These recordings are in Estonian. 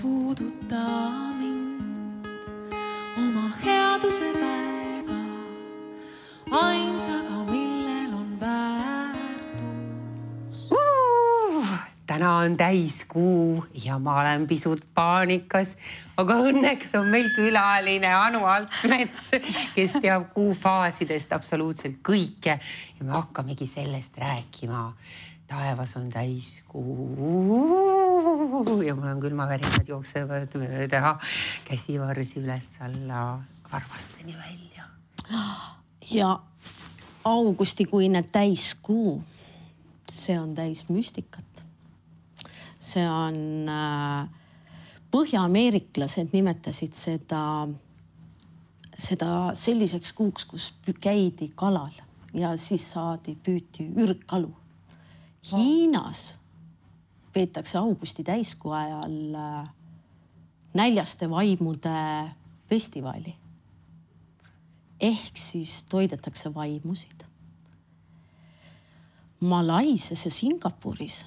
puuduta mind oma headuse väega, ainsaga, millel on väärtus. Täna on täiskuu ja ma olen pisut paanikas, aga õnneks on meil külaline Anu Altmets, kes teab kuu faasidest absoluutselt kõike ja me hakkamegi sellest rääkima. Taevas on täiskuu ja mul on külmavärinad jooksevad mööda käsivarsi üles alla varvasteni välja. Ja augustikuine täiskuu, see on täis müstikat. See on põhja-ameeriklased nimetasid seda selliseks kuuks, kus käidi kalal ja siis püüti ürgkalu. Hiinas peetakse augusti täiskuu ajal näljaste vaimude festivali. Ehk siis toidetakse vaimusid. Malaisias ja Singapuris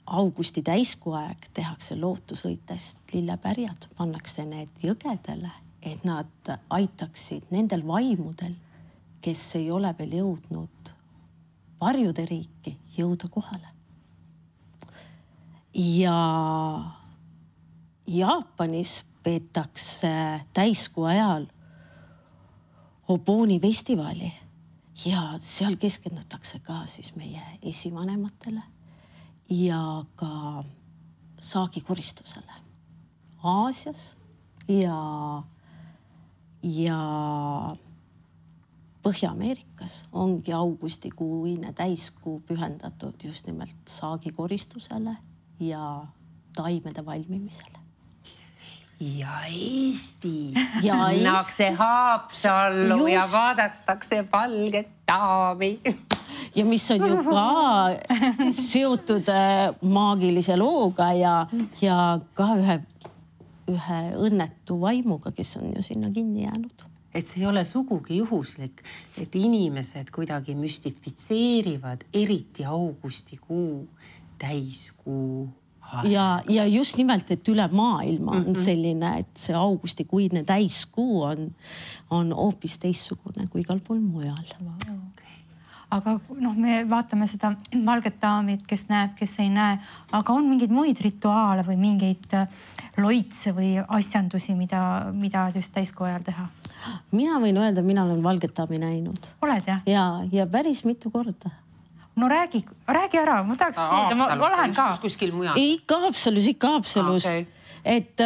augusti täiskuu aeg tehakse lootusõitest lillepärjad, pannakse need jõgedele, et nad aitaksid nendel vaimudel, kes ei ole veel jõudnud varjude riiki, jõuda kohale. Ja Jaapanis peetakse täiskuu ajal Oboni festivali ja seal keskendutakse ka siis meie esivanematele ja ka saagikoristusele. Aasias ja Põhja-Ameerikas ongi augustikuine täiskuu pühendatud just nimelt saagikoristusele ja taimede valmimisele. Ja Eestis pannakse Haapsallu ja vaadatakse valget daami. Ja mis on ju ka seotud maagilise looga ja ka ühe õnnetu vaimuga, kes on ju sinna kinni jäänud. Et see ei ole sugugi juhuslik, et inimesed kuidagi müstifitseerivad eriti augustikuu täiskuu. Ja just nimelt, et üle maailma on selline, et see augustikuine täiskuu on hoopis teissugune kui igal pool mujal. Aga me vaatame seda valget daamit, kes näeb, kes ei näe, aga on mingeid muid rituaale või mingeid loitse või asjandusi, mida just täiskuu ajal teha? Mina võin öelda, mina olen valget daami näinud. Oled jah? Ja päris mitu korda. No räägi ära, ma tahaks kuulda, ma lähen ka. Kuskil mujal? Ikka Haapsalus. Et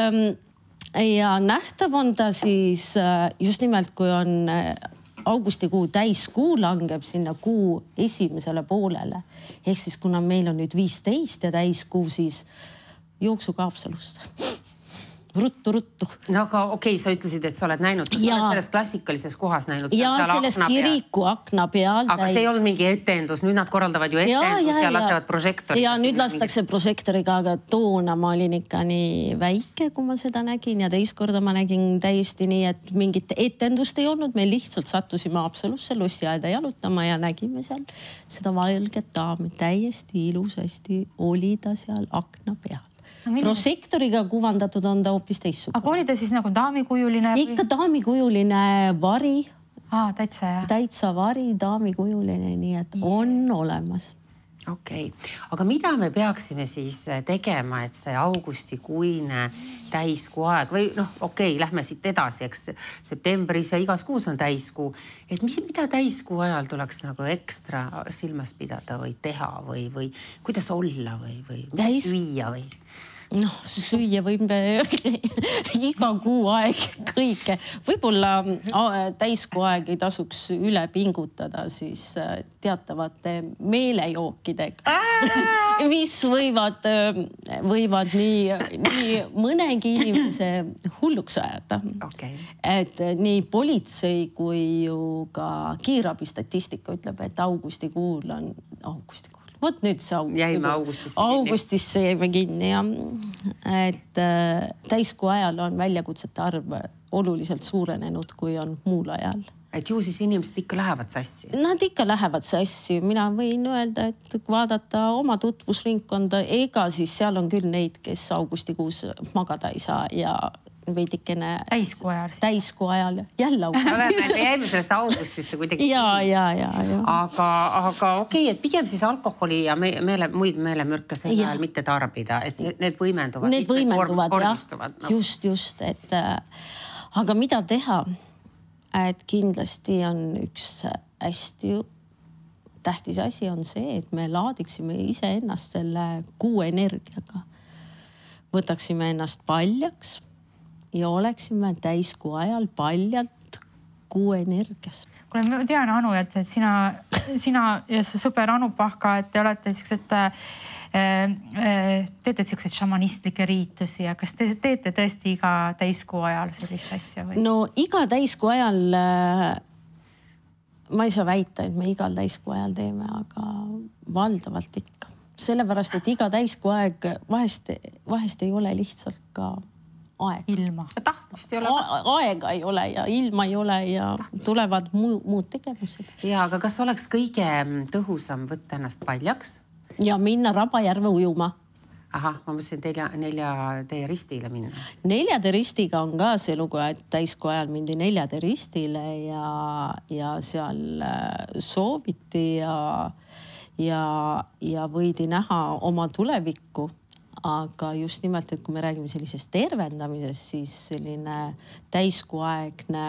ja nähtav on ta siis just nimelt, kui on augustikuu täiskuu langeb sinna kuu esimesele poolele. Ehk siis kuna meil on nüüd 15 ja täiskuu, siis jooksu ka Haapsalust. Ruttu. No aga okei, sa ütlesid, et sa oled näinud. Kas sa oled selles klassikalises kohas näinud? Ja selles kiriku akna peal. Aga see ei olnud mingi etendus. Nüüd nad korraldavad ju etendus ja lasevad prožektoriga. Ja nüüd lastakse prožektoriga, aga toona ma olin ikka nii väike, kui ma seda nägin. Ja teist korda ma nägin täiesti nii, et mingit etendust ei olnud. Me lihtsalt sattusime Haapsalusse lossiaeda jalutama ja nägime seal seda valget daami. Täiesti ilusasti oli ta seal akna peal. Prožektoriga kuvandatud on ta hoopis teissugune. Aga oli ta siis nagu daamikujuline? Ikka daamikujuline vari. Täitsa jah. Täitsa vari, daamikujuline, nii et on olemas. Okei. Aga mida me peaksime siis tegema, et see augustikuine täiskuu aeg või lähme siit edasi, eks septembris ja igas kuus on täiskuu. Et mida täiskuu ajal tuleks nagu ekstra silmas pidada või teha või kuidas olla või süüa või? Süüa võime iga kuu aeg kõike. Võib-olla täiskuu aeg ei tasuks üle pingutada siis teatavate meelejookidega, mis võivad nii mõnegi inimese hulluks ajada. Et nii politsei kui ju ka kiirabi statistika ütleb, et augustikuul on Vot nüüd see augustisse jäime kinni ja et täiskuu ajal on väljakutsete arv oluliselt suurenenud, kui on muul ajal. et ju siis inimesed ikka lähevad sassi. Nad ikka lähevad sassi. Mina võin öelda, et vaadata oma tutvusringkonda, ega siis seal on küll neid, kes augustikuus magada ei saa ja veidikene täiskuu ajal jälle augustis. Me jäime sellest augustisse kuidagi. Ja. Aga okei, et pigem siis alkoholi ja muid meelemürke sel ajal mitte tarbida, et need võimenduvad. Need võimenduvad, jah. Just, et aga mida teha? Et kindlasti on üks hästi tähtis asi on see, et me laadiksime ise ennast selle kuu energiaga. Võtaksime ennast paljaks ja oleksime täiskuu ajal paljalt kuu energias. Kuule, ma tean, Anu, et sina ja su sõber Anu Pahka, et te olete teete siukseid šamanistlikke riitusi ja kas te teete tõesti iga täiskuu ajal sellist asja või? No iga täiskuu ajal ma ei saa väita, et me igal täiskuu ajal teeme, aga valdavalt ikka. Sellepärast, et iga täiskuu aeg vahest ei ole lihtsalt ka aeg. Ilma. Tahtmist ei ole. Aega ei ole ja ilma ei ole ja tulevad muud tegevused. Ja, aga kas oleks kõige tõhusam võtta ennast paljaks? Ja minna Rabajärve ujuma. Ahah, ma mõtlesin teie ristile minna. 4. ristiga on ka see lugu, et täiskuu ajal mindi 4. ristile ja seal sooviti ja võidi näha oma tulevikku. Aga just nimelt, et kui me räägime sellisest tervendamisest, siis selline täiskuuaegne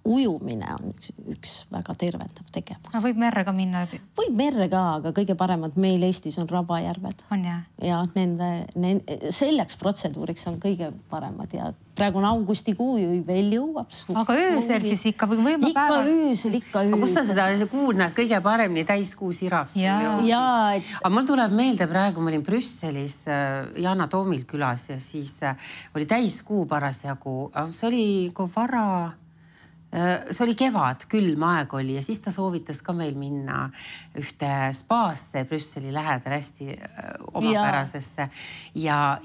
ujumine on üks väga tervendav tegevus. Võib merre ka minna? Võib merre ka, aga kõige paremad meil Eestis on Rabajärved. On jah? Ja selleks protseduuriks on kõige paremad ja praegu on augustikuu ju veel jõuab. Aga öösel siis ikka või võima päeval? Ikka öösel. Kus sa seda kuud näed kõige paremini täiskuu sirab? Aga mul tuleb meelde praegu, ma olin Brüsselis Yana Toomil külas ja siis oli täiskuu parasjagu. See oli see oli kevad, külm aeg oli ja siis ta soovitas ka meil minna ühte spaasse Brüsseli lähedal hästi omapärasesse ja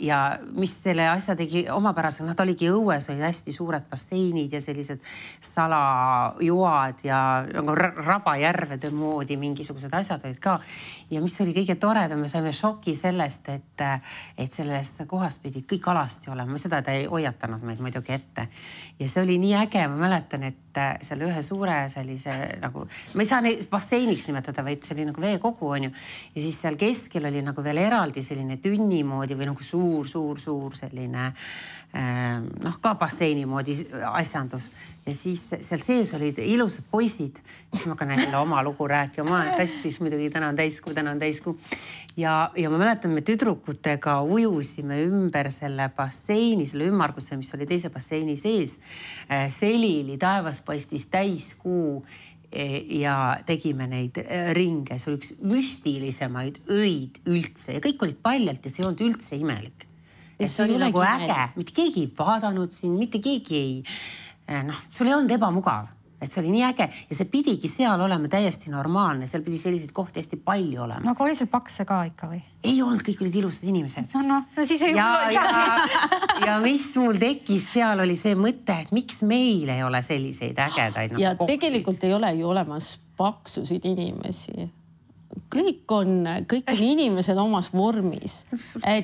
mis selle asja tegi omapärasega, ta oligi õues, oli hästi suured basseinid ja sellised salajoad ja Rabajärvede moodi mingisugused asjad olid ka ja mis oli kõige toredam, me saime šoki sellest, et selles kohas pidi kõik alasti olema, seda ta ei hoiatanud meid muidugi ette ja see oli nii äge, ma mäletan, et seal ühe suure sellise nagu, ma ei saa neid basseiniks nimetada, vaid see oli nagu veekogu on ju. Ja siis seal keskel oli nagu veel eraldi selline tünni moodi või nagu suur selline ka basseini moodi asjandus. Ja siis seal sees olid ilusad poisid. Siis ma hakkan jälle oma lugu rääkima. Ma olen festis muidugi, täna on täiskuu. Ja ma mäletan, me tüdrukutega ujusime ümber selle basseini, selle ümmarguse, mis oli teise basseini sees. Selili taevas paistis täiskuu ja tegime neid ringe. See oli üks müstilisemaid öid üldse ja kõik olid paljalt ja see ei olnud üldse imelik. Ja see oli nagu äge, mitte keegi ei vaadanud siin, mitte keegi ei, sul ei olnud ebamugav. Et see oli nii äge ja see pidigi seal olema täiesti normaalne, seal pidi selliseid kohti hästi palju olema. No aga oli seal pakse ka ikka või? Ei olnud, kõik olid ilusad inimesed. No siis ei ja mis mul tekkis seal oli see mõte, et miks meil ei ole selliseid ägedaid ja tegelikult ei ole ju olemas paksusid inimesi. Kõik on inimesed omas vormis.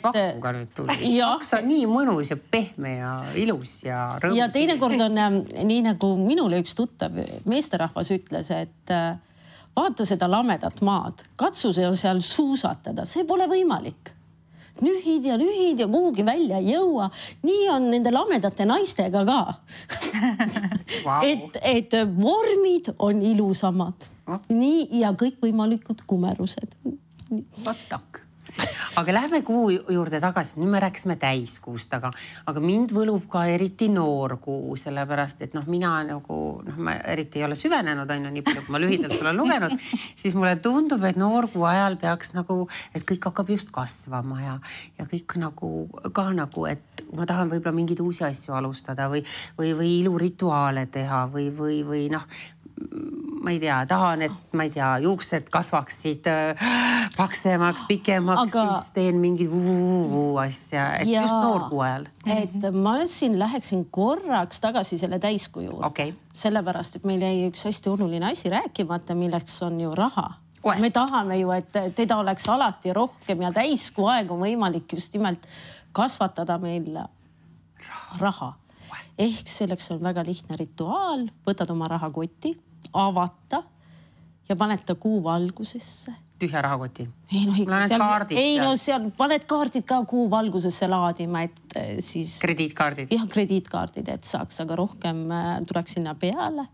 Pakkuga nüüd tuli. Paks on nii mõnus ja pehme ja ilus ja rõõmus. Ja teinekord on nii nagu minule üks tuttav meesterahvas ütles, et vaata seda lamedat maad, katsu seal suusatada, see pole võimalik. Nühid ja kuhugi välja ei jõua. Nii on nende lamedate naistega ka. Et vormid on ilusamad. Nii ja kõik võimalikud kumerused. Vatak. Aga lähme kuu juurde tagasi. Nüüd me rääkisime täiskuust, aga mind võlub ka eriti noorkuu, sellepärast, et mina nagu, ma eriti ei ole süvenenud, nii palju, kui ma lühidalt olen lugenud, siis mulle tundub, et noorkuu ajal peaks nagu, et kõik hakkab just kasvama ja kõik nagu, et ma tahan võib-olla mingeid uusi asju alustada või ilurituaale teha või ma ei tea, tahan, et ma ei tea, juuksed kasvaksid paksemaks, pikemaks, siis teen mingid asja, et ja, just noorkuu ajal. Et ma siin läheksin korraks tagasi selle täiskuu juurde. Okay. Sellepärast, et meil jäi üks hästi oluline asi rääkimata, milleks on ju raha. Me tahame ju, et teda oleks alati rohkem ja täiskuu aeg on võimalik just nimelt kasvatada meil raha. Ehk selleks on väga lihtne rituaal, võtad oma rahakoti, avata ja paned ta kuu valgusesse. Tühja rahakoti? Ei no seal paned kaardid ka kuu valgusesse laadima, et siis... Krediitkaardid? Jah, krediitkaardid, et saaks, aga rohkem tuleks sinna peale.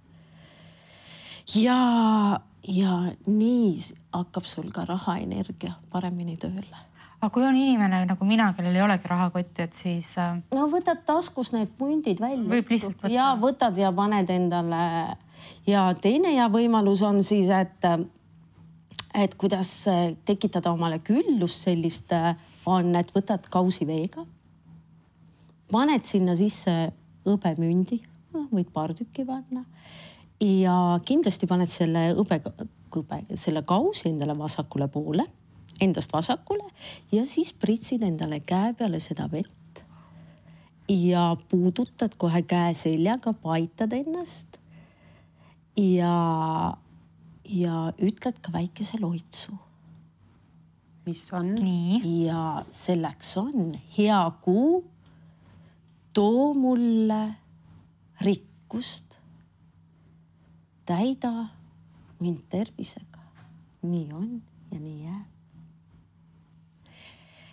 Ja nii hakkab sul ka rahaenergia paremini tööle. Aga kui on inimene nagu mina, kellel ei olegi rahakotti, et siis... No võtad taskus need pundid välja. Võib lihtsalt võtta. Ja võtad ja paned endale. Ja teine hea võimalus on siis, et kuidas tekitada omale küllust sellist on, et võtad kausi veega. Paned sinna sisse hõbemündi, võid paar tükki panna. Ja kindlasti paned selle kausi endale vasakule poole. Endast vasakule ja siis pritsid endale käe peale seda vett ja puudutad kohe käe seljaga, paitad ennast ja ütled ka väikese loitsu. Mis on? Nii. Ja selleks on hea kuu, too mulle rikkust, täida mind tervisega. Nii on ja nii jääb.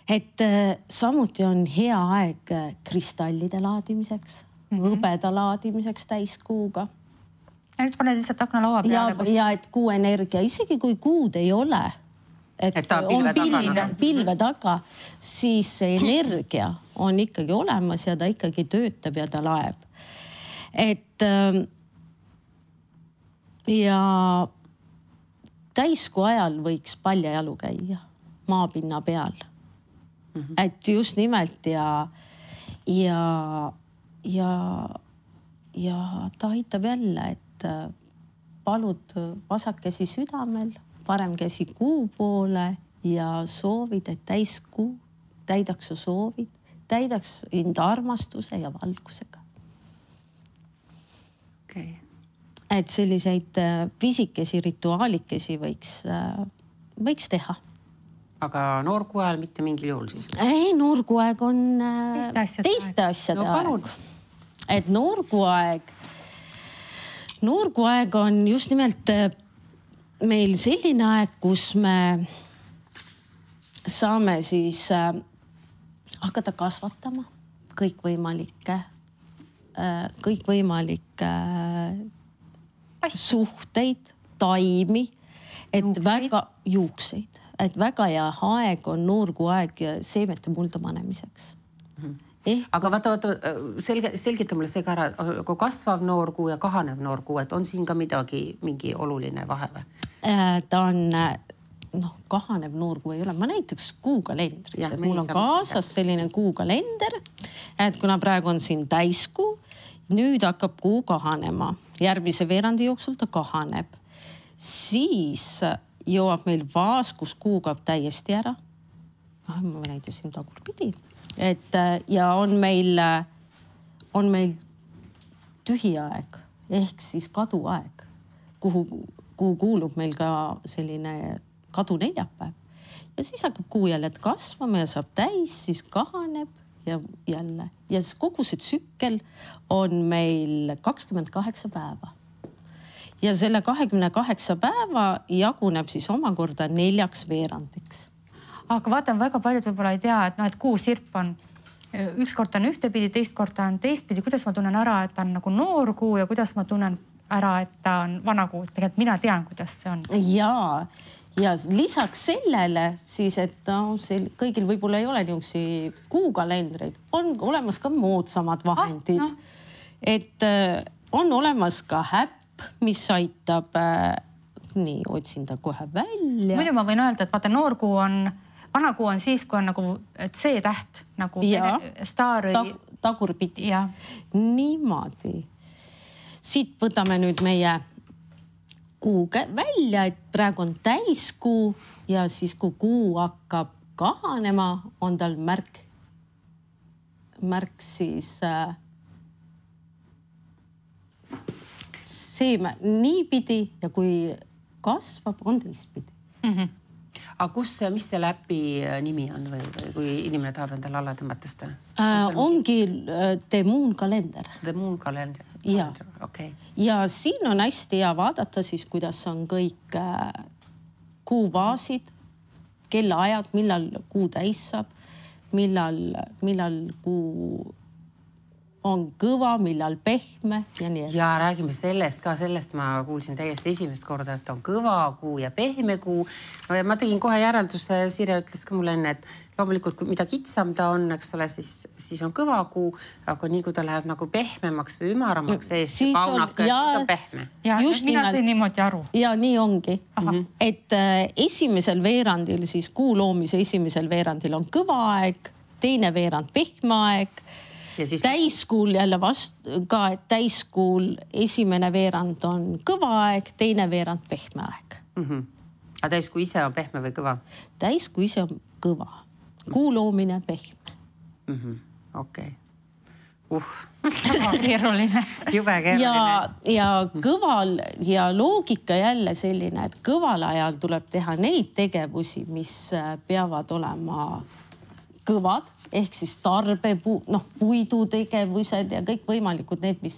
Et samuti on hea aeg kristallide laadimiseks, hõbeda laadimiseks täiskuuga. Ja nüüd paned lihtsalt aknalaua peale. Ja et kuu energia, isegi kui kuud ei ole, et ta on pilve taga, siis see energia on ikkagi olemas ja ta ikkagi töötab ja ta laeb. Et ja täiskuu ajal võiks paljajalu käia maapinna peal. Et just nimelt ja ta aitab jälle, et palud vasak käsi südamel, parem käsi kuu poole ja soovid, et täiskuu täidaks su soovid, täidaks enda armastuse ja valgusega. Okay. Et selliseid pisikesi rituaalikesi võiks teha. Aga noorkuu ajal mitte mingil juhul siis? Ei, noorkuu aeg on teiste asjade aeg. Et noorkuu aeg on just nimelt meil selline aeg, kus me saame siis hakata kasvatama kõikvõimalikke suhteid, taimi, et väga juukseid. Et väga hea aeg on noorkuu aeg seemete mulda panemiseks. Aga vaata, selgita mulle see ka ära, kui kasvav noorkuu ja kahanev noorkuu, et on siin ka mingi oluline vahe või? Ta on, kahanev noorkuu ei ole. Ma näiteks kuukalendrit, et mul on kaasas selline kuukalender, et kuna praegu on siin täiskuu, nüüd hakkab kuu kahanema. Järgmise veerandi jooksul ta kahaneb. Siis jõuab meil vaas, kus kuu kaob täiesti ära. Ma näitasin tagurpidi. Ja on meil tühi aeg ehk siis kaduaeg, kuhu kuulub meil ka selline kaduneljapäev. Ja siis hakkab kuu jälle kasvama ja saab täis, siis kahaneb ja jälle. Ja kogu see tsükkel on meil 28 päeva. Ja selle 28 päeva jaguneb siis omakorda 4 veerandiks. Aga vaatan, väga paljud võib-olla ei tea, et kuu sirp on, ükskord on ühtepidi, teist korda on teistpidi. Kuidas ma tunnen ära, et ta on nagu noor kuu ja kuidas ma tunnen ära, et ta on vana kuu? Tegelikult mina tean, kuidas see on. Ja lisaks sellele siis, et kõigil võib-olla ei ole niisugusi kuukalendreid, on olemas ka moodsamad vahendid. Et on olemas ka häpp, mis aitab, nii otsin ta kohe välja. Muidu ma võin öelda, et vaata, noorkuu on, vanakuu on siis, kui on nagu C-täht, nagu staari. Tagurpidi. Niimoodi. Siit võtame nüüd meie kuu välja, et praegu on täiskuu ja siis kui kuu hakkab kahanema, on tal märk siis seeme niipidi ja kui kasvab, on teistpidi. Aga mis selle äpi nimi on või kui inimene tahab endale alla tõmmata seda? Ongi The Moon kalender. The Moon kalender. Ja. Okay. Ja siin on hästi hea vaadata siis, kuidas on kõik kuuvaasid, kellaajad, millal kuu täis saab, millal kuu on kõva, millal pehme ja nii. Ja räägime sellest ma kuulsin täiesti esimest korda, et on kõva kuu ja pehme kuu. No ja ma tegin kohe järelduse, Sirje ütles ka mulle enne, et loomulikult mida kitsam ta on, eks ole, siis on kõva kuu, aga nii kui ta läheb nagu pehmemaks või ümaramaks kaunaka, siis on pehme. Ja mina sain niimoodi aru. Ja nii ongi. Et esimesel veerandil, siis kuu loomise esimesel veerandil on kõva aeg, teine veerand pehme aeg. Siis... Täiskuul jälle ka, et täiskuul esimene veerand on kõva aeg, teine veerand pehme aeg. Aga täiskuu ise on pehme või kõva? Täiskuu ise on kõva. Kuu loomine pehme. Okei. Väga keeruline. Jube keeruline. Ja kõval ja loogika jälle selline, et kõval ajal tuleb teha neid tegevusi, mis peavad olema kõvad. Ehk siis puidutegevused ja kõik võimalikud need, mis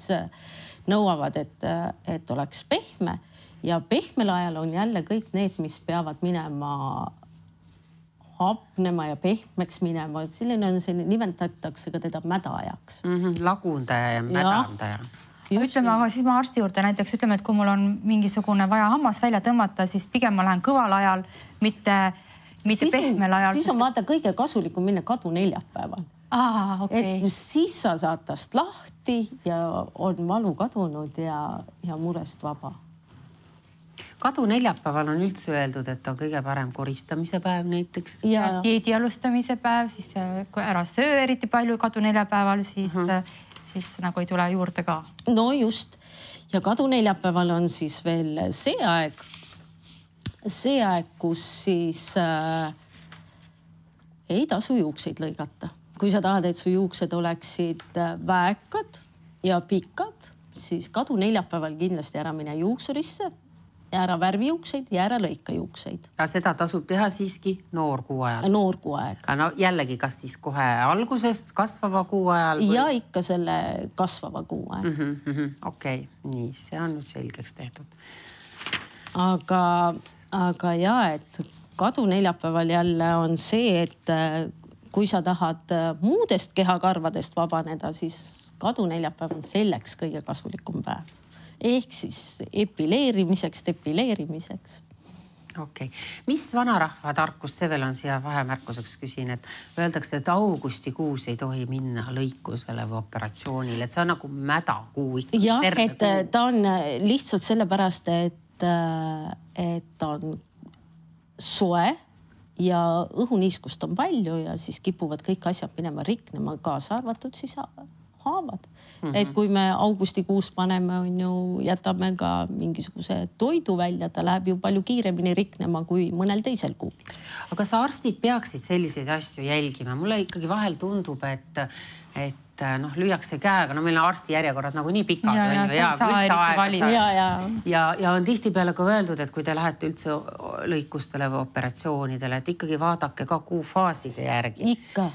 nõuavad, et oleks pehme. Ja pehmel ajal on jälle kõik need, mis peavad minema hapnema ja pehmeks minema. Selline on selline, nimetatakse ka teda mädaajaks. Lagundaja ja mädandaja. Ütleme, aga siis ma arsti juurde näiteks ütleme, et kui mul on mingisugune vaja hammas välja tõmmata, siis pigem ma lähen kõval ajal, mitte pehmel ajal. Siis on vaata kõige kasulikum minna kadu neljapäeval. Okay. Et siis sa saad tast lahti ja on valu kadunud ja murest vaba. Kadu neljapäeval on üldse öeldud, et on kõige parem koristamise päev näiteks. Ja dieedi alustamise päev, siis kui ära söö eriti palju kadu neljapäeval, siis nagu ei tule juurde ka. No just. Ja kadu neljapäeval on siis veel see aeg, kus siis ei tasu juukseid lõigata. Kui sa tahad, et su juuksed oleksid väekad ja pikad, siis kadu neljapäeval kindlasti ära mine juuksurisse ja ära värvi juukseid ja ära lõika juukseid. Ja seda tasub teha siiski noorkuu ajal? Noorkuu aeg. No jällegi, kas siis kohe algusest kasvava kuu ajal? Või... Ja ikka selle kasvava kuu aeg. Okei, nii, see on nüüd selgeks tehtud. Aga ja, et kadu neljapäeval jälle on see, et kui sa tahad muudest kehakarvadest vabaneda, siis kadu neljapäev on selleks kõige kasulikum päev. Ehk siis depileerimiseks. Okei. Mis vanarahva tarkus, see veel on siia vahemärkuseks küsin, et öeldakse, et augustikuus ei tohi minna lõikusele või operatsioonile, et see on nagu mädakuu ikka. Jah, et ta on lihtsalt sellepärast, et on soe ja õhuniiskust on palju ja siis kipuvad kõik asjad minema riknema, kaasa arvatud siis haavad. Et kui me augustikuus paneme, jätame ka mingisuguse toidu välja, ta läheb ju palju kiiremini riknema kui mõnel teisel kuul. Aga kas arstid peaksid selliseid asju jälgima? Mulle ikkagi vahel tundub, et lüüakse käega, meil on arsti järjekorrad nagu nii pikad. Ja on tihtipeale ka öeldud, et kui te lähete üldse lõikustele või operatsioonidele, et ikkagi vaadake ka kuufaaside järgi. Ikka.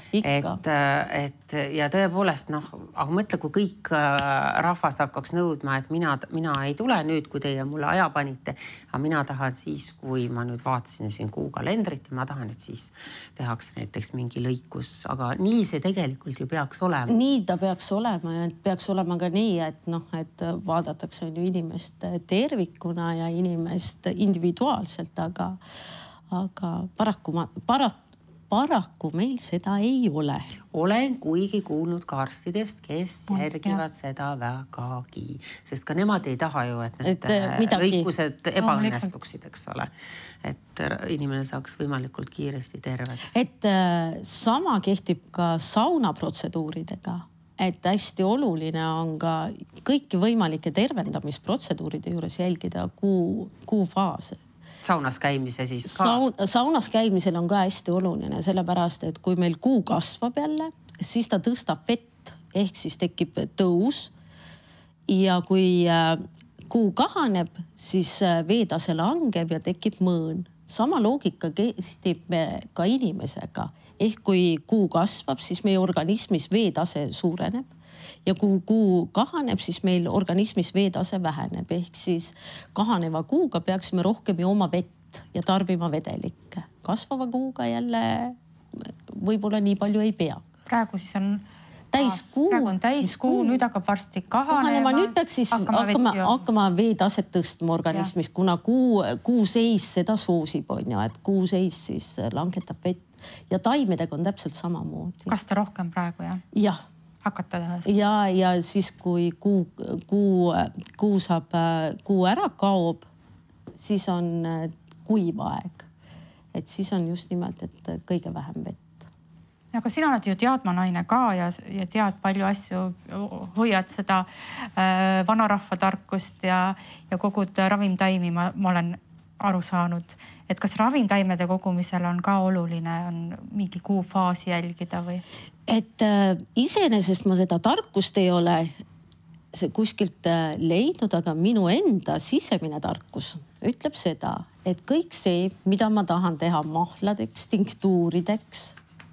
Ja tõepoolest, aga mõtle, kui kõik rahvas hakkaks nõudma, et mina ei tule nüüd, kui teie mulle aja panite, aga mina tahan siis, kui ma nüüd vaatasin siin kuukalendrit ja ma tahan, et siis tehakse näiteks mingi lõikus, aga nii see tegelikult ju peaks olema. Nii ta peaks olema ja peaks olema ka nii, et vaadatakse inimest tervikuna ja inimest individuaalselt, aga paraku meil seda ei ole. Olen kuigi kuulnud ka arstidest, kes järgivad seda vägagi, sest ka nemad ei taha ju, et need lõikused ebaõnnestuksid, eks ole. Et inimene saaks võimalikult kiiresti terveks. Et sama kehtib ka saunaprotseduuridega. et hästi oluline on ka kõiki võimalike tervendamisprotseduuride juures jälgida kuu faase. Saunas käimise siis ka? Saunas käimisel on ka hästi oluline, sellepärast, et kui meil kuu kasvab jälle, siis ta tõstab vett, ehk siis tekib tõus. Ja kui kuu kahaneb, siis veetase langeb ja tekib mõõn. Sama loogika kehtib ka inimesega. Ehk kui kuu kasvab, siis meie organismis veetase suureneb ja kui kuu kahaneb, siis meil organismis veetase väheneb. Ehk siis kahaneva kuuga peaksime rohkem jooma vett ja tarbima vedelikke. Kasvava kuuga jälle võib-olla nii palju ei pea. Praegu siis on täiskuu. Praegu on täiskuu, nüüd hakkab varsti kahanema. Nüüd peaks siis hakkama veetaset tõstma organismis, kuna kuu seis seda soosib, on ju, et kuu seis siis langetab vett ja taimedega on täpselt samamoodi. Kas ta rohkem praegu, jah? Jah. Hakata teha? Ja siis kui kuu ära kaob, siis on kuiv aeg. Et siis on just nimelt, et kõige vähem vett. Aga sina oled ju teadmanaine ka ja tead palju asju, hoiad seda vanarahva tarkust ja kogud ravimtaimi, ma olen aru saanud. Et kas ravimtaimede kogumisel on ka oluline, on mingi kuufaasi jälgida või? Et iseenesest ma seda tarkust ei ole kuskilt leidnud, aga minu enda sisemine tarkus ütleb seda, et kõik see, mida ma tahan teha mahladeks, tinktuurideks,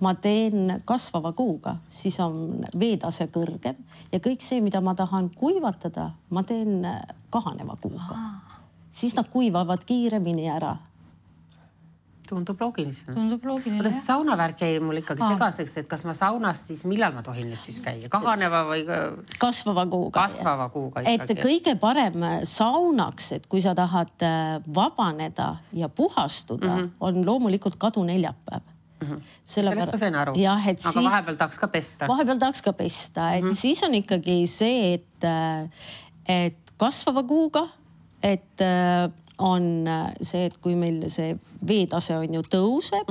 ma teen kasvava kuuga, siis on veetase kõrgem ja kõik see, mida ma tahan kuivatada, ma teen kahaneva kuuga. Siis nad kuivavad kiiremini ära. Tundub loogiline. Tundub loogiline, jah. Saunavärk jäi mul ikkagi segaseks, et kas ma saunas siis, millal ma tohin nüüd siis käia? Kahaneva või? Kasvava kuuga. Kasvava kuuga ikkagi. Et kõige parem saunaks, et kui sa tahad vabaneda ja puhastuda, on loomulikult kaduneljapäev. Sellest ma sain aru. Aga vahepeal tahaks ka pesta. Vahepeal tahaks ka pesta. Et siis on ikkagi see, et kasvava kuuga, et on see, et kui meil see veetase on ju tõuseb,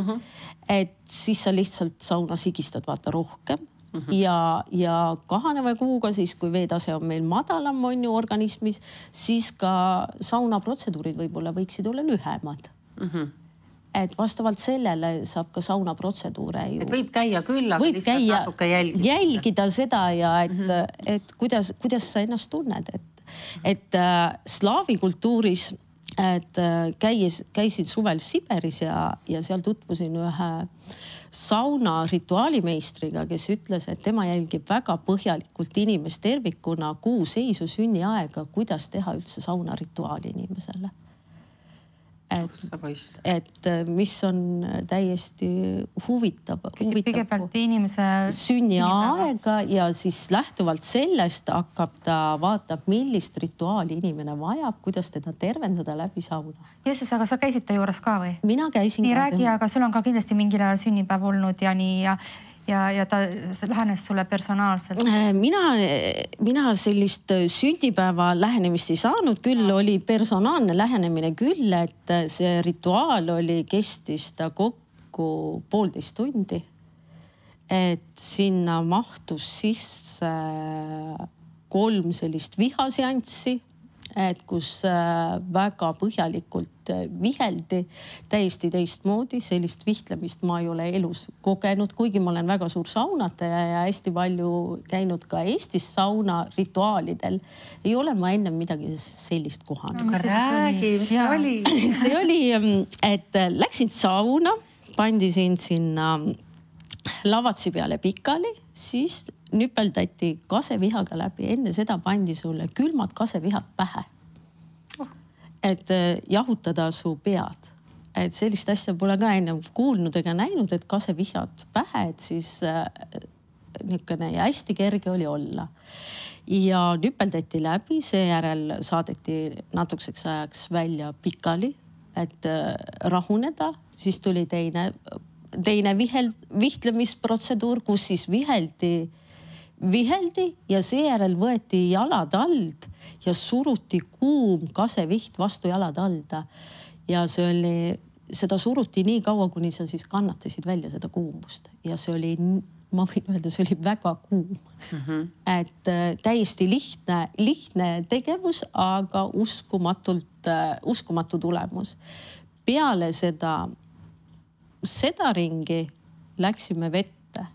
et siis sa lihtsalt saunas higistad vaata rohkem ja kahaneva kuuga siis, kui veetase on meil madalam on ju organismis, siis ka saunaprotseduurid võib-olla võiksid olla lühemad. Et vastavalt sellele saab ka saunaprotseduure ju. Et võib käia küll, aga lihtsalt natuke jälgida seda ja et kuidas sa ennast tunned. Et slaavi kultuuris käisin suvel Siberis ja seal tutvusin ühe sauna rituaalimeistriga, kes ütles, et tema jälgib väga põhjalikult inimest tervikuna kuu seisu, sünniaega, kuidas teha üldse sauna rituaali inimesele. Et mis on täiesti huvitav. Kõigepealt inimese sünniaega ja siis lähtuvalt sellest vaatab, millist rituaali inimene vajab, kuidas teda tervendada läbi sauna. Jeesus, aga sa käisid ta juures ka või? Mina käisin. Nii räägi, aga sul on ka kindlasti mingil ajal sünnipäev olnud ja nii ja ta lähenes sulle personaalselt. Mina sellist sünnipäeva lähenemist ei saanud, küll oli personaalne lähenemine küll, et see rituaal kestis ta kokku 1,5 tundi. Et sinna mahtus sisse 3 sellist vihaseanssi, et kus väga põhjalikult viheldi täiesti teistmoodi. Sellist vihtlemist ma ei ole elus kogenud, kuigi ma olen väga suur saunataja ja hästi palju käinud ka Eestis sauna rituaalidel. Ei ole ma enne midagi sellist kohanud. Aga räägi, mis see oli? See oli, et läksin sauna, pandisin sinna lavatsi peale pikali, siis nüpeldati kasevihaga läbi. Enne seda pandi sulle külmad kasevihad pähe. Et jahutada su pead. Et sellist asja pole ka enne kuulnud ega näinud, et kasevihad pähe, et siis niisugune ja hästi kerge oli olla. Ja nüpeldati läbi, seejärel saadeti natukeseks ajaks välja pikali, et rahuneda. Siis tuli teine vihtlemisprotseduur, kus siis viheldi ja seejärel võeti jalad alt ja suruti kuum kaseviht vastu jalad alda. Ja seda suruti nii kaua, kuni sa siis kannatasid välja seda kuumust. Ja see oli ma võin öelda, see oli väga kuum. Et täiesti lihtne tegevus, aga uskumatu tulemus. Peale seda ringi läksime vette,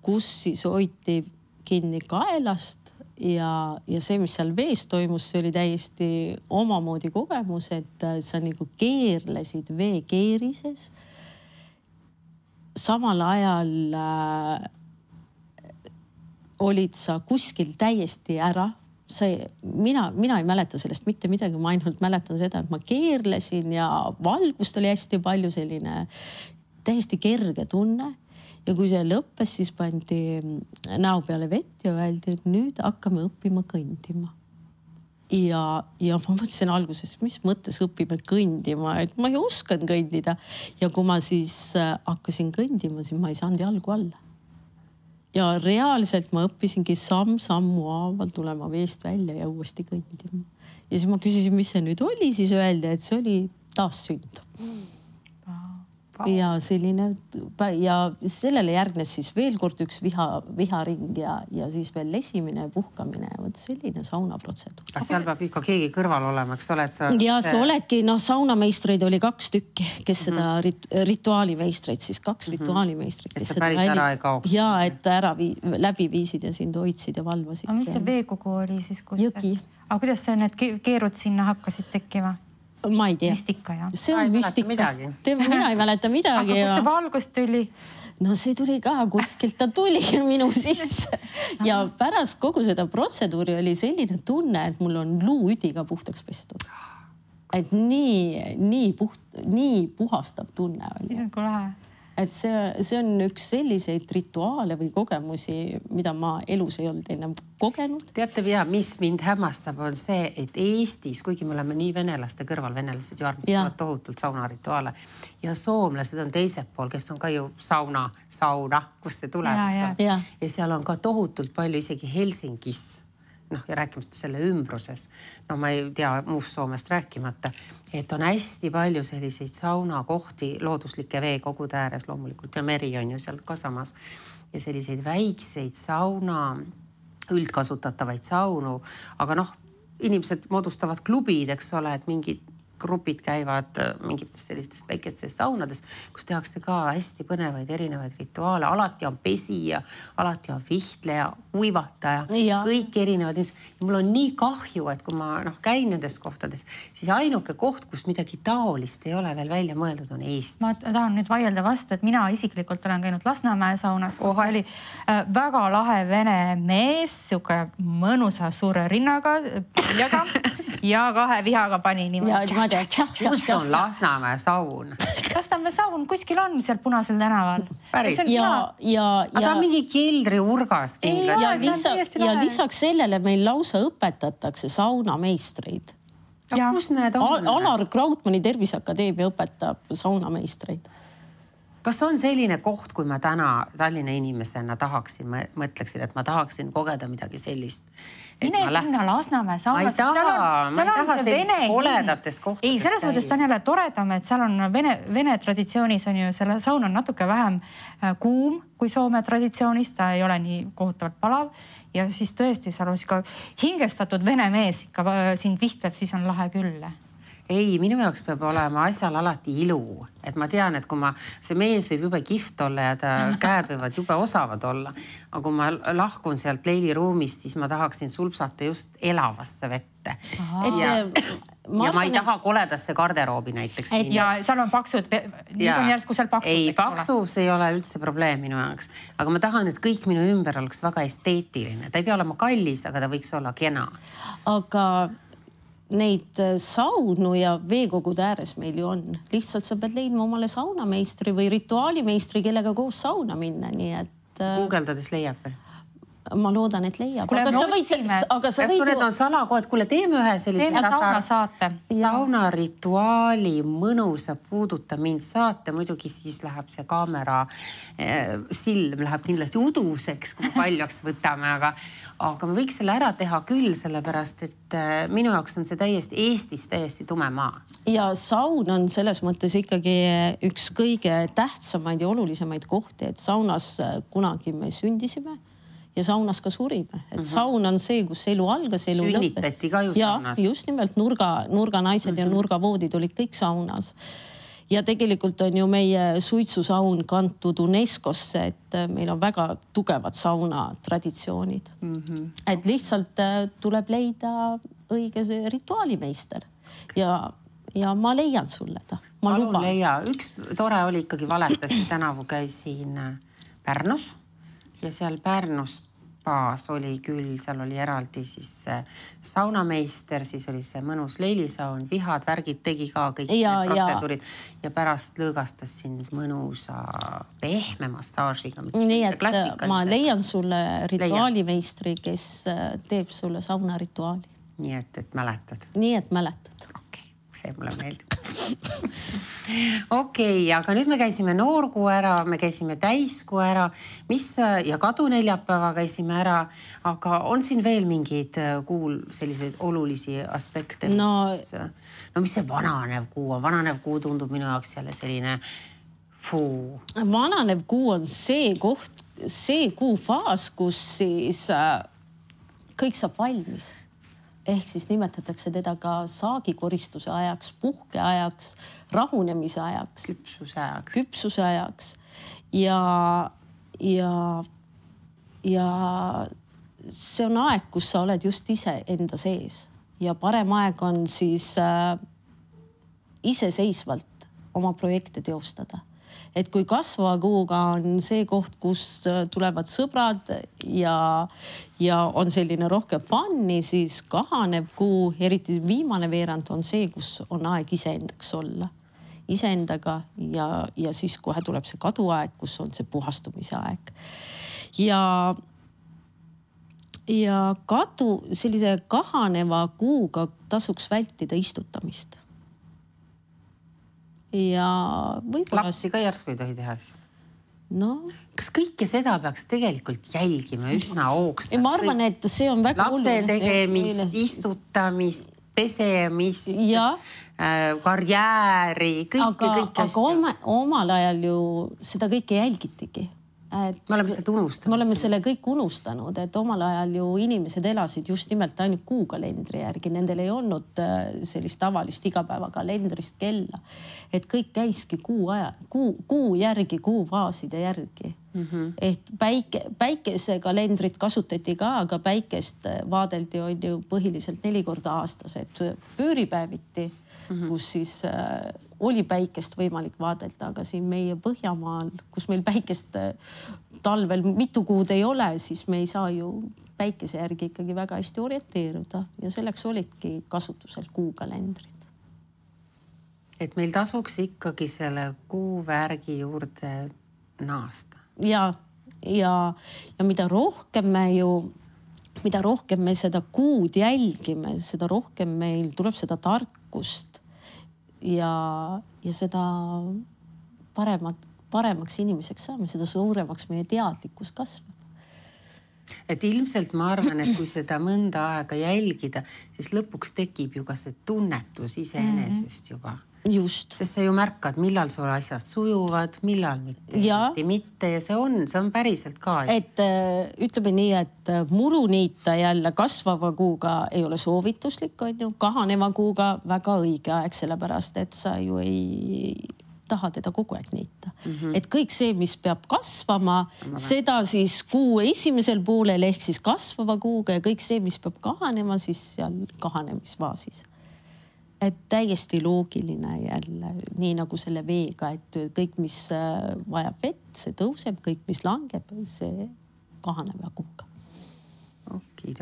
kus siis hoiti kinni kaelast ja see, mis seal vees toimus, see oli täiesti omamoodi kogemus, et sa nagu keerlesid veekeerises. Samal ajal olid sa kuskil täiesti ära. Mina ei mäleta sellest mitte midagi, ma ainult mäletan seda, et ma keerlesin ja valgust oli hästi palju, selline täiesti kerge tunne. Ja kui see lõppes, siis pandi näo peale vett ja öeldi, et nüüd hakkame õppima kõndima. Ja ma mõtlesin alguses, mis mõttes õpime kõndima, et ma ei oskan kõndida. Ja kui ma siis hakkasin kõndima, siis ma ei saanud jalgu alla. Ja reaalselt ma õppisingi sammu haaval tulema veest välja ja uuesti kõndima. Ja siis ma küsisin, mis see nüüd oli, siis öeldi, et see oli taassünd. Ja selline, ja sellele järgnes siis veel kord üks viharing ja siis veel lesimine ja puhkamine. Võt selline saunaprotseduur. Seal peab ikka keegi kõrval olema, eks ole? Ja sa oledki, saunameistreid oli 2 tükki, kes seda rituaalimeistreid, siis 2 rituaalimeistreid. Et sa päris ära ei kaoks. Ja, et ära läbi viisid ja sind hoidsid ja valvasid. Aga mis see veekogu oli siis? Jõgi. Aga kuidas see need keerud sinna hakkasid tekkima? Ma ei tea. Müstika, jah. See on müstika. Mina ei mäleta midagi. Aga kus see valgus tuli? No see tuli ka kuskilt, ta tuli minu sisse. Ja pärast kogu seda protseduuri oli selline tunne, et mul on luuüdiga puhtaks pestud. Et nii puhastav tunne oli. Kui lähe. Et see on üks selliseid rituaale või kogemusi, mida ma elus ei olnud enne kogenud. Teate, mis mind hämmastab, on see, et Eestis, kuigi me oleme nii venelaste kõrval, venelased ju armastavad tohutult saunarituaale ja soomlased on teiselt pool, kes on ka ju sauna, kust see tuleb. Ja seal on ka tohutult palju isegi Helsingis. Ja rääkimata selle ümbruses. Ma ei tea muust Soomest rääkimata, et on hästi palju selliseid saunakohti looduslike veekogude ääres loomulikult ja meri on ju seal ka samas. Ja selliseid väikseid sauna, üldkasutatavaid saunu, aga inimesed moodustavad klubid, eks ole, et mingid grupid käivad mingites sellistest väikestest saunades, kus tehakse ka hästi põnevaid erinevaid rituaale. Alati on pesija, alati on vihtleja, kuivataja, kõik erinevad. Ja mul on nii kahju, et kui ma käin nendes kohtades, siis ainuke koht, kus midagi taolist ei ole veel välja mõeldud, on Eesti. Ma tahan nüüd vaielda vastu, et mina isiklikult olen käinud Lasnamäe saunas, kus oli väga lahe vene mees, siuke mõnusa suure rinnaga, piljaga ja 2 vihaga pani niimoodi. Kus on Lasnamäe saun? Lasnamäe saun kuskil on seal Punasel tänaval. Päris. Aga mingi keldri urgas kindlasti. Ja lisaks sellele meil lausa õpetatakse saunameistreid. Kus need on? Alar Krautmani Terviseakadeemia õpetab saunameistreid. Kas on selline koht, kui ma täna Tallinna inimesena tahaksin, mõtleksin, et ma tahaksin kogeda midagi sellist? Mine sinna Lasnamäe saunas. Ma ei taha sellist oledates kohtades. Ei, selles mõttes ta on jälle toredam, et seal on vene traditsioonis on ju, selle saun on natuke vähem kuum kui Soome traditsioonis, ta ei ole nii kohutavalt palav ja siis tõesti seal on ka hingestatud vene mees ikka sind vihtleb, siis on lahe küll. Ei, minu jaoks peab olema asjal alati ilu. Et ma tean, et kui see mees võib jube kihvt olla ja ta käed võivad jube osavad olla. Aga kui ma lahkun sealt leiliruumist, siis ma tahaksin sulpsata just elavasse vette. Ja ma ei taha koledasse garderoobi näiteks. Ja seal on paksud, nüüd on järsku seal paksud. Ei, paksus ei ole üldse probleem minu jaoks. Aga ma tahan, et kõik minu ümber oleks väga esteetiline. Ta ei pea olema kallis, aga ta võiks olla kena. Aga neid saunu ja veekogude ääres meil ju on. Lihtsalt sa pead leidma omale saunameistri või rituaalimeistri, kellega koos sauna minna. Nii et Guugeldades leiab. ma loodan, et leiab. Kuule, Aga sa võid, kui need on salakohad, kuule, teeme ühe sellise sauna saate. Saunarituaali mõnusa puuduta mind saate. Muidugi siis läheb see kaamera silm läheb kindlasti uduseks, kui paljaks võtame, aga me võiks selle ära teha küll, sellepärast, et minu jaoks on see Eestis täiesti tume maa. Ja saun on selles mõttes ikkagi üks kõige tähtsamaid ja olulisemaid kohti, et saunas kunagi me sündisime ja saunas ka surime. Et saun on see, kus elu algas, elu lõppes. Sünnitati ka ju saunas. Ja just nimelt nurga naised ja nurgavoodid olid kõik saunas. Ja tegelikult on ju meie suitsusaun kantud UNESCO-sse, et meil on väga tugevad sauna traditsioonid. Et lihtsalt tuleb leida õige rituaalimeister ja ma leian sulle ta. Ma luban. Leia. Üks tore oli ikkagi valetas, tänavu käisin Pärnus ja seal Pärnus oli küll, seal oli eraldi siis saunameister, siis oli see mõnus leilisaun, vihad, värgid tegi ka kõik protseduurid ja pärast lõõgastas sind mõnusa pehme massaažiga. Nii, et ma leian sulle rituaalimeistri, kes teeb sulle saunarituaali. Nii, et mäletad. Nii, et mäletad. Okei, see mulle meeldib. Okei, aga nüüd me käisime noorkuu ära, me käisime täiskuu ära, ja kaduneljapäeva käisime ära, aga on siin veel mingeid kuul selliseid olulisi aspekte, mis see vananev kuu on? Vananev kuu tundub minu jaoks jälle selline fuu. Vananev kuu on see koht, see kuufaas, kus siis kõik saab valmis. Ehk siis nimetatakse teda ka saagikoristuse ajaks, puhke ajaks, rahunemise ajaks, küpsuse ajaks. Ja see on aeg, kus sa oled just ise enda sees ja parem aeg on siis iseseisvalt oma projekte teostada. Et kui kasvava kuuga on see koht, kus tulevad sõbrad ja on selline rohkem fanni, siis kahanev kuu, eriti viimane veerand on see, kus on aeg iseendaks olla. Iseendaga ja siis kohe tuleb see kaduaeg, kus on see puhastumise aeg. Ja sellise kahaneva kuuga tasuks vältida istutamist. Ja võib-olla... Lapsi ka järsku ei tohi teha siis? No. Kas kõike seda peaks tegelikult jälgima üsna hoogsalt? Ma arvan, et see on väga lapse tegemist, istutamist, pesemist, karjääri, kõike asja. Aga omal ajal ju seda kõike jälgitigi. Me oleme seda unustanud. Me oleme selle kõik unustanud, et omal ajal ju inimesed elasid just nimelt ainult kuukalendri järgi. Nendel ei olnud sellist tavalist igapäevakalendrist kella. Et kõik käiski kuu järgi, kuufaaside järgi. Et päikesekalendrit kasutati ka, aga päikest vaadeldi on ju põhiliselt 4 korda aastas. Et pööripäeviti, kus siis... oli päikest võimalik vaadelda, aga siin meie Põhjamaal, kus meil päikest talvel mitu kuud ei ole, siis me ei saa ju päikese järgi ikkagi väga hästi orienteeruda ja selleks olidki kasutusel kuukalendrid. Et meil tasuks ikkagi selle kuuvärgi juurde naasta. Ja mida rohkem me seda kuud jälgime, seda rohkem meil tuleb seda tarkust ja seda paremaks inimeseks saame, seda suuremaks meie teadlikkus kasvab. Et ilmselt ma arvan, et kui seda mõnda aega jälgida, siis lõpuks tekib ju ka see tunnetus iseenesest juba. Just. Sest sa ju märkad, millal sul asjad sujuvad, millal mitte ja see on päriselt ka. Et ütleme nii, et muru niita jälle kasvava kuuga ei ole soovituslik, on ju, kahaneva kuuga väga õige aeg, sellepärast, et sa ju ei taha teda kogu aeg niita. Et kõik see, mis peab kasvama, seda siis kuu esimesel poolel ehk siis kasvava kuuga ja kõik see, mis peab kahanema, siis seal kahanemisfaasis. Et täiesti loogiline jälle, nii nagu selle veega, et kõik, mis vajab vett, see tõuseb, kõik, mis langeb, see kahaneb ja kuuga. Okei.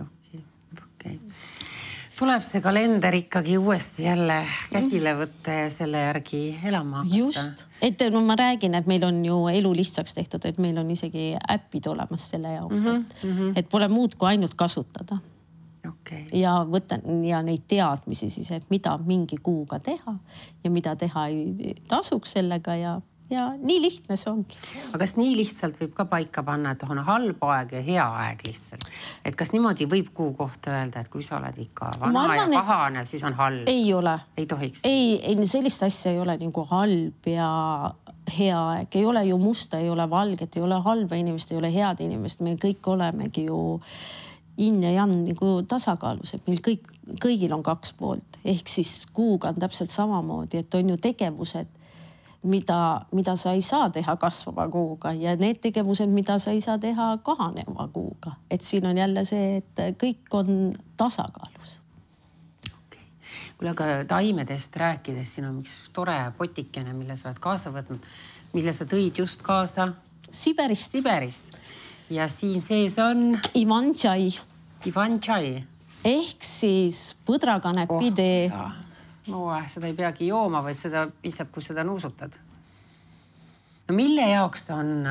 tuleb see kalender ikkagi uuesti jälle käsile võtta ja selle järgi elama hakata. Just, et no ma räägin, et meil on ju elu lihtsaks tehtud, et meil on isegi äppid olemas selle jaoks, et pole muud kui ainult kasutada. Okay. Ja võtan ja neid teadmisi siis, et mida mingi kuuga teha ja mida teha ei tasuks sellega ja nii lihtne see ongi. Aga kas nii lihtsalt võib ka paika panna, et on halb aeg ja hea aeg lihtsalt? Et kas niimoodi võib kuu kohta öelda, et kui sa oled ikka vana arvan, ja pahane, siis on halb? Ei ole. Ei tohiks? Ei, sellist asja ei ole nagu halb ja hea aeg. Ei ole ju musta, ei ole valget, ei ole halba inimest, ei ole head inimest. Me kõik olemegi ju in ja jan nagu tasakaalus, et meil kõigil on 2 poolt. Ehk siis kuuga on täpselt samamoodi, et on ju tegevused, mida sa ei saa teha kasvava kuuga ja need tegevused, mida sa ei saa teha kahaneva kuuga. Et siin on jälle see, et kõik on tasakaalus. Okay. Kuule, aga taimedest rääkides, siin on üks tore potikene, mille sa oled kaasa võtnud, mille sa tõid just kaasa Siberist. Ja siin sees on Ivan-tšai. Ehk siis põdrakanepi tee. No, seda ei peagi jooma, vaid seda piisab, kui seda nuusutad. No mille jaoks on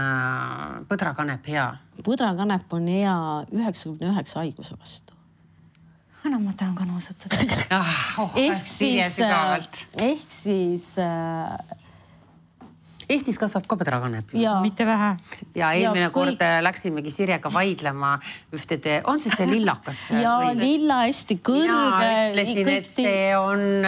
põdrakanep hea? Põdrakanep on hea 99 haiguse vastu. No ma tahan ka nuusutada. Ehk siis Eestis kasvab ka põdrakanep. Mitte vähe. Ja eelmine kord läksimegi Sirjega vaidlema ühtede, on see lillakas? Ja lilla hästi kõrge. Mina ütlesin, et see on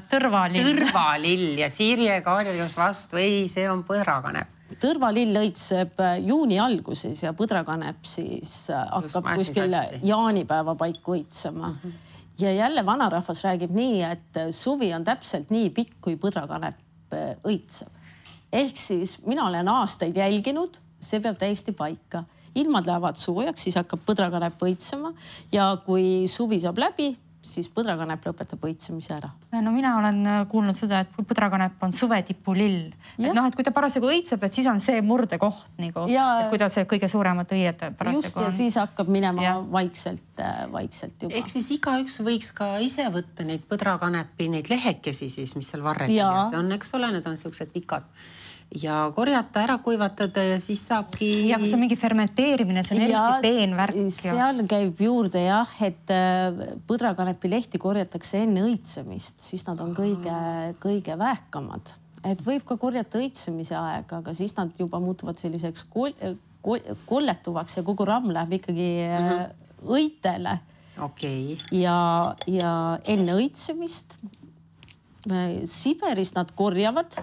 tõrvalill ja Sirje karjus vastu, ei, see on põdrakanep. Tõrvalill õitseb juuni alguses ja põdrakanep siis hakkab kuskil jaanipäeva paiku õitsema. Ja jälle vanarahvas räägib nii, et suvi on täpselt nii pikk, kui põdrakanep õitseb. Ehk siis mina olen aastaid jälginud, see peab täiesti paika. Ilmad lähevad soojaks, siis hakkab põdrakanep õitsema ja kui suvi saab läbi, siis põdrakanep lõpetab õitsemise ära. No mina olen kuulnud seda, et põdrakanep on suvetipulill. Et noh, et kui ta parasjagu õitseb, et siis on see murdekoht, nagu, et kui ta see kõige suuremad õied parasjagu on. Just ja siis hakkab minema vaikselt juba. Ehk siis igaüks võiks ka ise võtta neid põdrakanepi, neid lehekesi siis, mis seal varreti ja see on, eks ole, need on sellised pikad. Ja korjata, ära kuivatada ja siis saabki... Ja kui see on mingi fermenteerimine, see on eriti peenvärk. Seal käib juurde jah, et põdrakanepi lehti korjatakse enne õitsemist, siis nad on kõige vähkamad. Et võib ka korjata õitsemise aega, aga siis nad juba muutuvad selliseks kolletuvaks ja kogu ramm läheb ikkagi õitele. Okay. Ja enne õitsemist Siberis nad korjavad,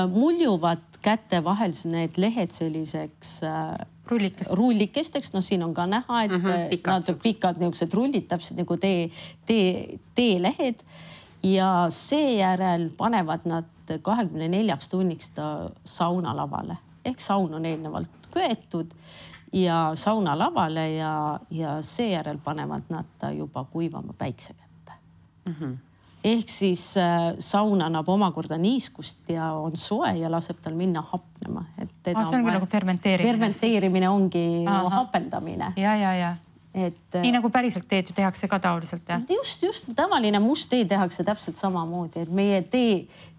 muljuvad käte vahel need lehed selliseks rullikesteks. No siin on ka näha, et nad pikad niisugused rullid, täpselt nagu teelehed ja seejärel panevad nad 24 tunniks ta saunalavale. Ehk saun on eelnevalt köetud ja saunalavale ja seejärel panevad nad ta juba kuivama päikse kätte. Ehk siis saun annab omakorda niiskust ja on soe ja laseb tal minna hapnema. See ongi nagu fermenteerimine. Fermenteerimine ongi hapendamine. Ja. Nii nagu päriselt teed ju tehakse ka taoliselt. Just. Tavaline must tee tehakse täpselt samamoodi. Et meie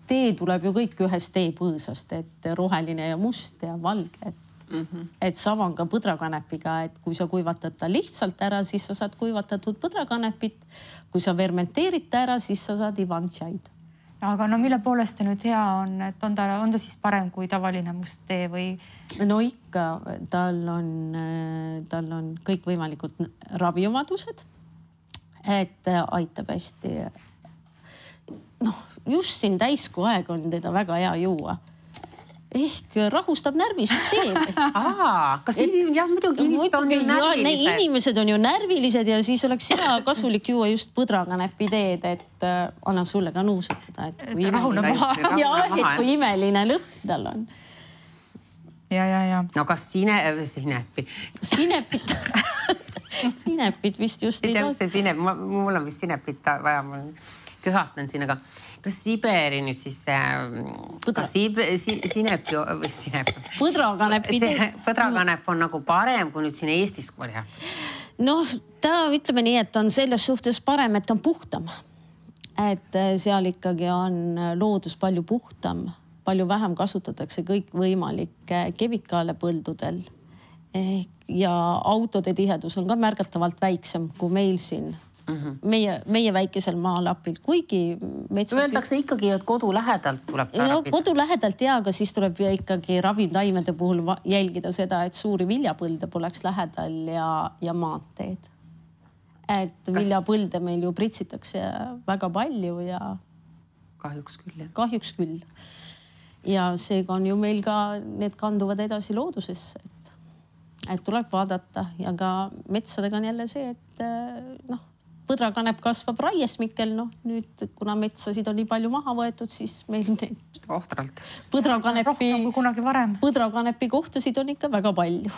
tee tuleb ju kõik ühest teepõõsast, et roheline ja must ja valge. Et sama on ka põdrakanepiga, et kui sa kuivatad ta lihtsalt ära, siis sa saad kuivatatud põdrakanepit. Kui sa fermenteerid ta ära, siis sa saad Ivan-tšaid. Aga no mille poolest ta nüüd hea on, et on ta siis parem kui tavaline must tee või? No ikka, tal on kõik võimalikud raviomadused, et aitab hästi. Noh, just siin täiskuu aeg on teda väga hea juua. Ehk rahustab närvisüsteemi. Kas muidugi inimesed on ju närvilised? Inimesed on ju närvilised ja siis oleks hea kasulik juua just põdrakanepi teed, et annan sulle ka nuusutada. Et kui imeline lõhn tal on. Ja. No kas sinepit vist just ei taas. Mul on vist sinepit vaja, ma köhatan siin, aga kas Siberi nüüd siis põdrakanepi põdrakanep on nagu parem kui nüüd siin Eestis korjatud? Noh, ta ütleme nii, et on selles suhtes parem, et on puhtam. Et seal ikkagi on loodus palju puhtam, palju vähem kasutatakse kõik võimalikke kemikaale põldudel. Ja autode tihedus on ka märgatavalt väiksem kui meil siin. Meie väikesel maalapil, kuigi metsas... Öeldakse ikkagi, et kodu lähedalt tuleb tarbida. Kodu lähedalt aga siis tuleb ikkagi ravimtaimede puhul jälgida seda, et suuri viljapõlde poleks lähedal ja maanteed. Et viljapõlde meil ju pritsitakse väga palju ja... Kahjuks küll, jah. Kahjuks küll. Ja seega on ju meil ka, need kanduvad edasi loodusesse. Et tuleb vaadata ja ka metsadega on jälle see, et põdrakanep kasvab raiesmikel, nüüd kuna metsasid on nii palju maha võetud, siis meil neid ohtralt põdrakanepi kohtasid on ikka väga palju.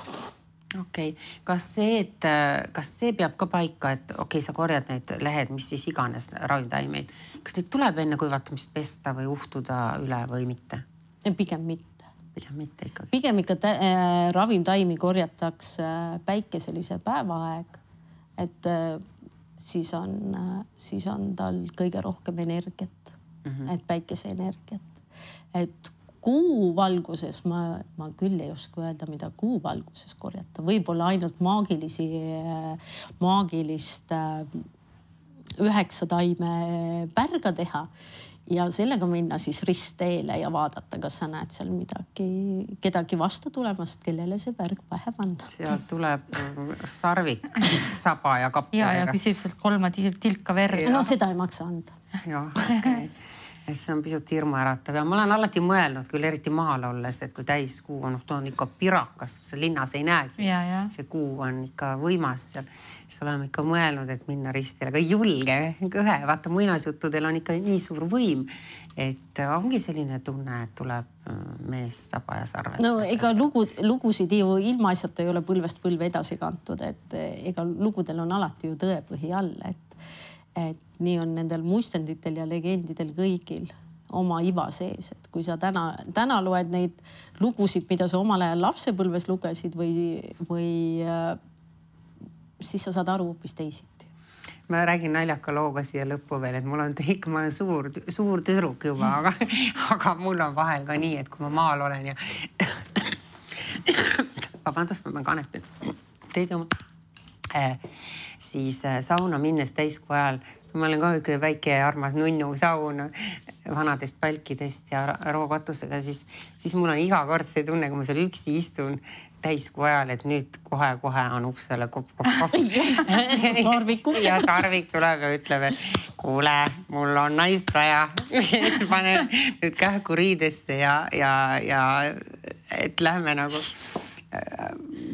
Okei. Kas see peab ka paika, et sa korjad need lehed, mis siis iganes ravimtaimeid. Kas neid tuleb enne kuivatamist pesta või uhtuda üle või mitte? Pigem mitte. Pigem mitte ikkagi. Pigem ikka ravimtaimi korjatakse päikeselise päevaaeg, et siis on tal kõige rohkem energiat, et päikese energiat. Et kuu valguses ma küll ei oska öelda, mida kuu valguses korjata. Võib-olla ainult maagilist 9 taime pärga teha ja sellega minna siis ristteele ja vaadata, kas sa näed seal kedagi vastu tulemast, kellele see pärg pähe panna. Seal tuleb sarvik, saba ja kappadega. Ja küsib sealt 3 tilka verd. No seda ei maksa anda. Jah, okei. Et see on pisut hirmuäratav ja ma olen alati mõelnud küll eriti maal olles, et kui täiskuu on, on ikka pirakas, see linnas ei näegi. See kuu on ikka võimas seal. Siis oleme ikka mõelnud, et minna ristile, aga ei julge. Vaata, muinasjuttudel on ikka nii suur võim, et ongi selline tunne, et tuleb mees saba ja sarved. No ega lugusid ju ilmaasjata ei ole põlvest põlve edasi kantud, et ega lugudel on alati ju tõepõhi all, et nii on nendel muistenditel ja legendidel kõigil oma iva sees. Et kui sa täna loed neid lugusid, mida sa omal ajal lapsepõlves lugesid või siis sa saad aru hoopis teisiti. Ma räägin naljaka looga siia lõppu veel, et ma olen suur tüdruk juba, aga mul on vahel ka nii, et kui ma maal olen ja vabandust, ma pean kanepi teid oma siis sauna minnes täiskuu ajal. Ma olen ka üks väike armas nunnu saun vanadest palkidest ja rookatusega, siis mul on iga kord see tunne, kui ma seal üksi istun täiskuu ajal, et nüüd kohe on uksele kopp. Ja Sarvik tuleb ja ütleb, et kuule, mul on naist vaja. Panen nüüd kähku riidesse ja et lähme nagu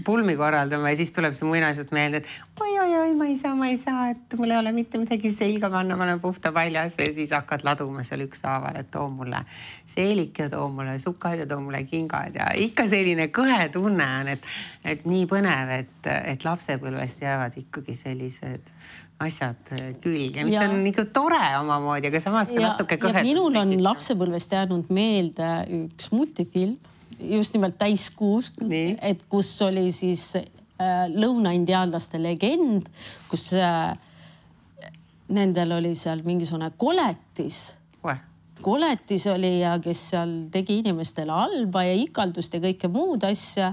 pulmi korraldama ja siis tuleb see muinasjutt meelde, et oi, ma ei saa, et mul ei ole mitte midagi selga panna, ma olen puhta paljas ja siis hakkad laduma seal ükshaaval, et too mulle seelik ja too mulle sukad ja too mulle kingad ja ikka selline kõhe tunne on, et nii põnev, et lapsepõlvest jäävad ikkagi sellised asjad külge, mis on ikka tore omamoodi, aga samas ka natuke kõhedust. Ja minul on lapsepõlvest jäänud meelde üks multifilm, just nimelt täiskuus, et kus oli siis lõunaindiaanlaste legend, kus nendel oli seal mingisugune koletis. Koletis oli ja kes seal tegi inimestele halba ja ikaldust ja kõike muud asja.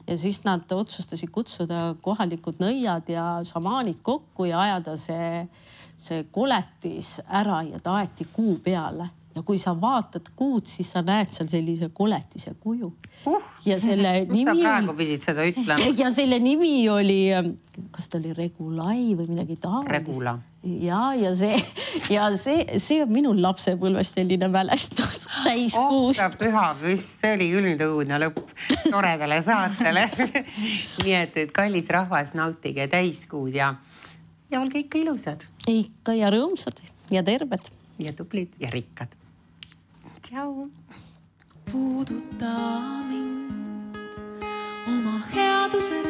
Ja siis nad otsustasid kutsuda kohalikud nõiad ja šamaanid kokku ja ajada see koletis ära ja ta aeti kuu peale. Ja kui sa vaatad kuud, siis sa näed seal sellise koletise kuju. Ja selle nimi sa praegu pidid seda ütlema. Ja selle nimi oli, kas ta oli Regulai või midagi taolist? Regula. Ja see on minul lapsepõlvest selline mälestus täiskuust. Püha püst, see oli küll nüüd õudne lõpp toredale saatele. Nii et kallis rahvas, nautige täiskuud ja olge ikka ilusad. Ikka ja rõõmsad ja terved. Ja tublid ja rikkad. Tšau. Puuduta mind oma headuse